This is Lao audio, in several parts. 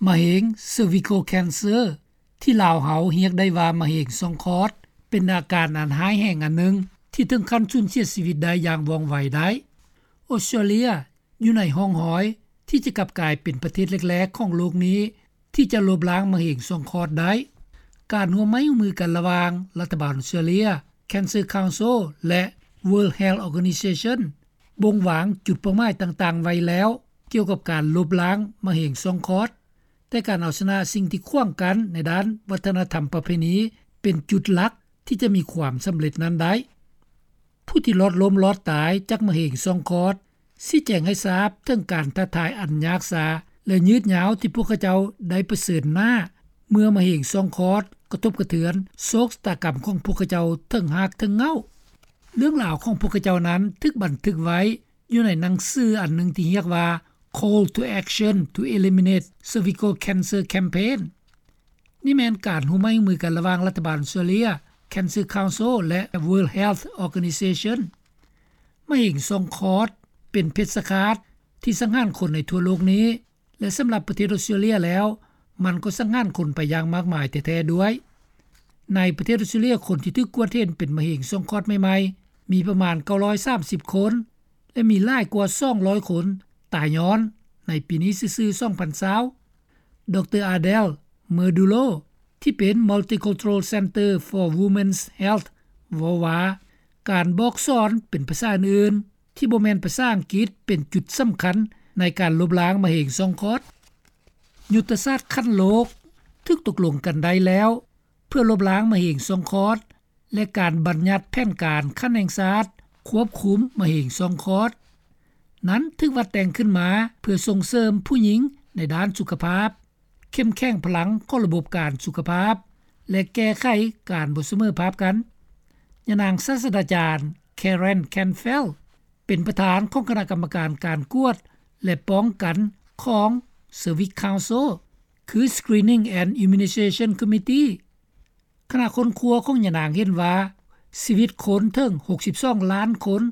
ມະເຮັງ cervical cancer ທີ່ລາວເຮົາຮຽກໄດ້ວ່າມະເຮັງຊ່ອງຄອດ ເປັນອາການອັນຮ້າຍແຮງອັນໜຶ່ງ ທີ່ເຖິງຂັ້ນສູນເສຍຊີວິດໄດ້ຢ່າງວ່ອງໄວໄດ້. ອອສເຕຣເລຍຢູ່ໃນຮ່ອງຮອຍທີ່ຈະກັບກາຍເປັນປະເທດແລກໆຂອງໂລກນີ້ ທີ່ຈະລົບລ້າງມະເຮັງຊ່ອງຄອດໄດ້. ການຮ່ວມໄມ້ຮ່ວມມືກັນລະຫວ່າງລັດຖະບານອອສເຕຣເລຍ, Cancer Council ແລະ World Health Organization ບົ່ງວາງຈຸດເປົ້າໝາຍຕ່າງໆໄວ້ແລ້ວ ກ່ຽວກັບການລົບລ້າງມະເຮັງຊ່ອງຄອດ, ແຕ່ການເອົາຊະນະສິ່ງທີ່ຂວາງກັ້ນໃນດ້ານວັດທະນະທຳປະເພນີ ເປັນຈຸດຫຼັກທີ່ຈະມີຄວາມສຳເລັດນັ້ນໄດ້. ຜູ້ທີ່ລອດລົ້ມລອດຕາຍຈາກມະເຮັງຊ່ອງຄອດ ຊີ້ແຈງໃຫ້ຊາບເຖິງການທ້າທາຍອັນຍາກຊາ ແລະ ຍືດຍາວທີ່ພວກເຂົາເຈົ້າໄດ້ປະເຊີນໜ້າ ເມື່ອມະເຮັງຊ່ອງຄອດກະທົບກະເທືອນໂຊກຊະຕາກຳຂອງພວກເຂົາເຈົ້າເຖິງຮາກເຖິງເຫງົ້າ. ເລື່ອງລາວຂອງພວກເຂົາເຈົ້ານັ້ນຖືກບັນທຶກໄວ້ຢູ່ໃນໜັງສືອັນໜຶ່ງທີ່ຮຽກວ່າ Call to Action to Eliminate Cervical Cancer Campaign. ນີ້ແມ່ນການຮ່ວມໄມ້ຮ່ວມມືກັນລະຫວ່າງລັດຖະບານອອສເຕຣເລຍ, Cancer Council ແລະ World Health Organization. ມະເຮັງຊ່ອງຄອດເປັນເພັດຊະຄາດທີ່ສັງຫານຄົນໃນທົ່ວໂລກນີ້ ແລະ ສຳລັບປະເທດອອສເຕຣເລຍແລ້ວ ມັນກໍສັງຫານຄົນໄປຢ່າງມາກມາຍແທ້ໆດ້ວຍ. ໃນປະເທດອອສເຕຣເລຍ ຄົນທີ່ຖືກກວດເຫັນເປັນມະເຮັງຊ່ອງຄອດໃໝ່ໆ ມີປະມານເກົ້າຮ້ອຍສາມສິບຄົນ ແລະ ມີຫຼາຍກວ່າສອງຮ້ອຍຄົນຕາຍຍ້ອນໃນປີນີ້ຊື່ໆ ສອງພັນຊາວ. ດຣ. Adel Murdullo ທີ່ເປັນ Multicultural Center for Women's Health ເວົ້າວ່າ ການບອກສອນເປັນພາສາອື່ນໆ ທີ່ບໍ່ແມ່ນພາສາອັງກິດ ເປັນຈຸດສຳຄັນໃນການລົບລ້າງມະເຮັງຊ່ອງຄອດ. ຍຸດທະສາດຂັ້ນໂລກຖືກຕົກລົງກັນໄດ້ແລ້ວ ເພື່ອລົບລ້າງມະເຮັງຊ່ອງຄອດ ແລະ ການບັນຍັດແຜນການຂັ້ນແຫ່ງຊາດຄວບຄຸມມະເຮັງຊ່ອງຄອດ ນັ້ນຖືກວັດແຕ່ງຂຶ້ນມາເພື່ອສົ່ງເສີມຜູ້ຍິງໃນດ້ານສຸຂະພາບ, ເຂັ້ມແຂງພະລັງຂອງລະບົບການສຸຂະພາບ ແລະ ແກ້ໄຂການບໍ່ສະເໝີພາບກັນ. ຍານາງສາດສະດາຈານ Karen Canfeld ເປັນປະທານຂອງຄະນະກຳມະການການກວດ ແລະ ປ້ອງກັນຂອງ Cervix Council ຄື Screening and Immunization Committee. ຄະນະຄົ້ນຄວ້າຂອງຍານາງເຫັນວ່າ ຊີວິດຄົນເຖິງຫົກສິບສອງລ້ານຄົນ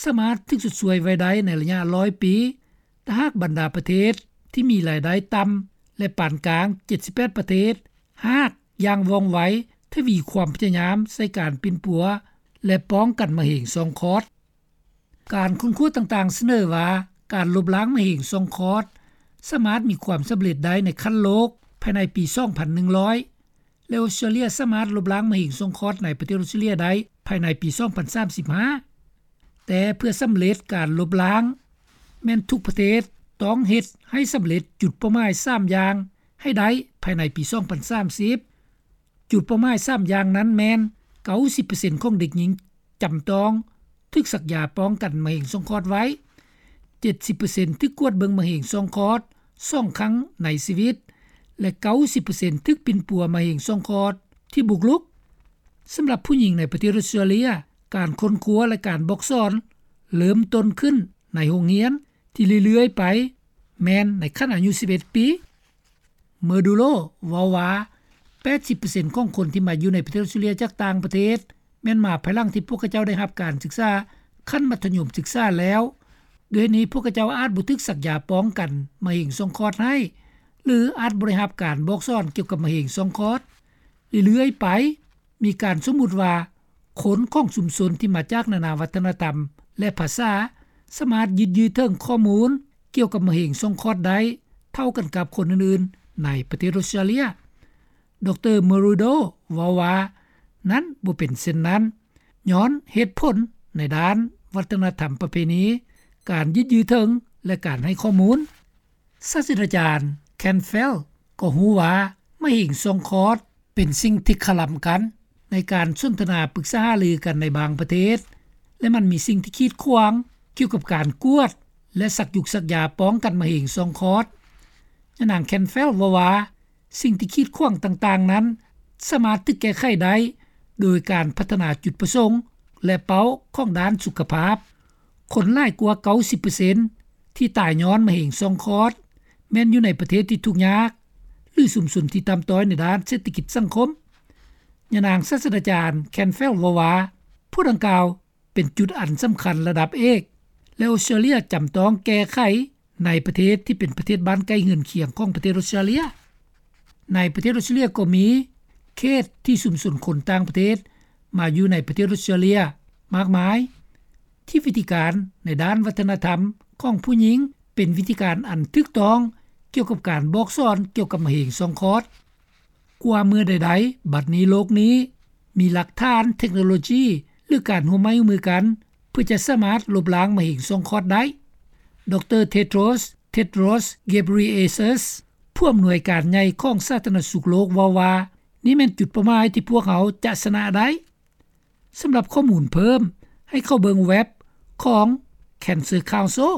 ສາມາດຖືກຊົດຊ່ວຍໄວ້ໄດ້ໃນໄລຍະຮ້ອຍປີ ຖ້າຫາກບັນດາປະເທດທີ່ມີລາຍໄດ້ຕ່ຳ ແລະ ປານກາງ ເຈັດສິບແປດປະເທດ ຫາກຢ່າງວ່ອງໄວ ທະວີຄວາມພະຍາຍາມໃສ່ການປິ່ນປົວ ແລະ ປ້ອງກັນມະເຮັງຊ່ອງຄອດ. ການຄົ້ນຄວ້າຕ່າງໆສະເໜີວ່າ ການລົບລ້າງມະເຮັງຊ່ອງຄອດ ສາມາດມີຄວາມສຳເລັດໄດ້ໃນຂັ້ນໂລກພາຍໃນປີສອງພັນໜຶ່ງຮ້ອຍ ແລະ ອອສເຕຣເລຍສາມາດລົບລ້າງມະເຮັງຊ່ອງຄອດໃນປະເທດອອສເຕຣເລຍໄດ້ພາຍໃນປີສອງພັນສາມສິບຫ້າ. ແຕ່ເພື່ອສຳເລັດການລົບລ້າງ ແມ່ນທຸກປະເທດຕ້ອງເຮັດໃຫ້ສຳເລັດຈຸດເປົ້າໝາຍສາມຢ່າງໃຫ້ໄດ້ພາຍໃນປີສອງພັນສາມສິບ. ຈຸດເປົ້າໝາຍສາມຢ່າງນັ້ນແມ່ນ ເກົ້າສິບເປີເຊັນຂອງເດັກຍິງຈຳຕ້ອງຖືກສັກຢາປ້ອງກັນມະເຮັງຊ່ອງຄອດໄວ້, ເຈັດສິບເປີເຊັນຖືກກວດເບິ່ງມະເຮັງຊ່ອງຄອດສອງຄັ້ງໃນຊີວິດ ແລະ ເກົ້າສິບເປີເຊັນຖືກປິ່ນປົວມະເຮັງຊ່ອງຄອດທີ່ບຸກລຸກ. ສຳລັບຜູ້ຍິງໃນປະເທດອອສເຕຣເລຍ, ການຄົ້ນຄວ້າ ແລະ ການບອກສອນເລີ່ມຕົ້ນຂຶ້ນໃນໂຮງຮຽນທີ່ເລື້ອຍໆໄປ ແມ່ນໃນຂັ້ນອາຍຸສິບເອັດປີ. Murdullo ເວົ້າວ່າ ແປດສິບເປີເຊັນຂອງຄົນທີ່ມາຢູ່ໃນປະເທດອອສເຕຣເລຍຈາກຕ່າງປະເທດ ແມ່ນມາພາຍຫຼັງທີ່ພວກເຂົາເຈົ້າໄດ້ຮັບການສຶກສາຂັ້ນມັດທະຍົມສຶກສາແລ້ວ. ດ້ວຍນີ້ພວກເຂົາເຈົ້າອາດບໍ່ຖືກສັກຢາປ້ອງກັນມະເຮັງຊ່ອງຄອດໃຫ້ ຫຼື ອາດບໍ່ໄດ້ຮັບການບອກສອນກ່ຽວກັບມະເຮັງຊ່ອງຄອດ. ເລື້ອຍໆໄປ ມີການສົມມຸດວ່າ ຄົນຂອງຊຸມຊົນທີ່ມາຈາກນານາວັດທະນະທຳ ແລະ ພາສາ ສາມາດຍຶດຍືດເຖິງຂໍ້ມູນກ່ຽວກັບມະເຮັງຊ່ອງຄອດໄດ້ເທົ່າກັນກັບຄົນອື່ນໆໃນປະເທດອອສເຕຣເລຍ. ດຣ. Murdullo ເວົ້າວ່າ ນັ້ນບໍ່ເປັນເຊັ່ນນັ້ນ ຍ້ອນເຫດຜົນໃນດ້ານວັດທະນະທຳປະເພນີ, ການຍຶດຍືດເຖິງ ແລະ ການໃຫ້ຂໍ້ມູນ. ສາດສະດາຈານ Canfeld ກໍຮູ້ວ່າມະເຮັງຊ່ອງຄອດເປັນສິ່ງທີ່ຄະລຳກັນໃນການສົນທະນາປຶກສາຫາລືກັນໃນບາງປະເທດ ແລະ ມັນມີສິ່ງທີ່ກີດຂວາງກ່ຽວກັບການກວດ ແລະ ສັກຢູກສັກຢາປ້ອງກັນມະເຮັງຊ່ອງຄອດ. ຍານາງ Canfeld ເວົ້າວ່າ ສິ່ງທີ່ກີດຂວາງຕ່າງໆນັ້ນ ສາມາດຖືກແກ້ໄຂໄດ້ໂດຍການພັດທະນາຈຸດປະສົງ ແລະ ເປົ້າຂອງດ້ານສຸຂະພາບ. ຄົນຫຼາຍກວ່າເກົ້າສິບເປີເຊັນທີ່ຕາຍຍ້ອນມະເຮັງຊ່ອງຄອດ ແມ່ນຢູ່ໃນປະເທດທີ່ທຸກຍາກ ຫຼື ຊຸມຊົນທີ່ຕ່ຳຕ້ອຍໃນດ້ານເສດຖະກິດສັງຄົມ. ຍານາງສາດສະດາຈານ Canfeld ເວົ້າວ່າ ພວກດັ່ງກ່າວເປັນຈຸດອັນສຳຄັນລະດັບເອກ ແລະ ອອສເຕຣເລຍຈຳຕ້ອງແກ້ໄຂ ໃນປະເທດທີ່ເປັນປະເທດບ້ານໃກ້ເຮືອນຄຽງຂອງປະເທດອົດສະຕຣາເລັຍ. ໃນປະເທດອົດສະຕຣາເລັຍກໍມີເຂດທີ່ຊຸມຊົນຄົນຕ່າງປະເທດມາຢູ່ໃນປະເທດອົດສະຕຣາເລັຍມາກມາຍ ທີ່ວິທີການໃນດ້ານວັດທະນະທຳຂອງຜູ້ຍິງເປັນວິທີການອັນຖືກຕ້ອງກ່ຽວກັບການບອກສອນກ່ຽວກັບມະເຮັງຊ່ອງຄອດ. ກວ່າເມື່ອໃດໆ ບັດນີ້ໂລກນີ້ມີຫຼັກຖານເທັກໂນໂລຈີ ຫຼື ການຮ່ວມໄມ້ຮ່ວມມືກັນ ເພື່ອຈະສາມາດລົບລ້າງມະເຮັງຊ່ອງຄອດໄດ້. ດຣ Tedros Tedros Ghebreyesus ຜູ້ອຳນວຍການໃຫຍ່ຂອງສາທາລະນະສຸກໂລກເວົ້າວ່າ ນີ້ແມ່ນຈຸດເປົ້າໝາຍທີ່ພວກເຮົາຈະຊະນະໄດ້. ສຳລັບຂໍ້ມູນເພີ່ມ ໃຫ້ເຂົ້າເບິ່ງເວັບຂອງ Cancer Council.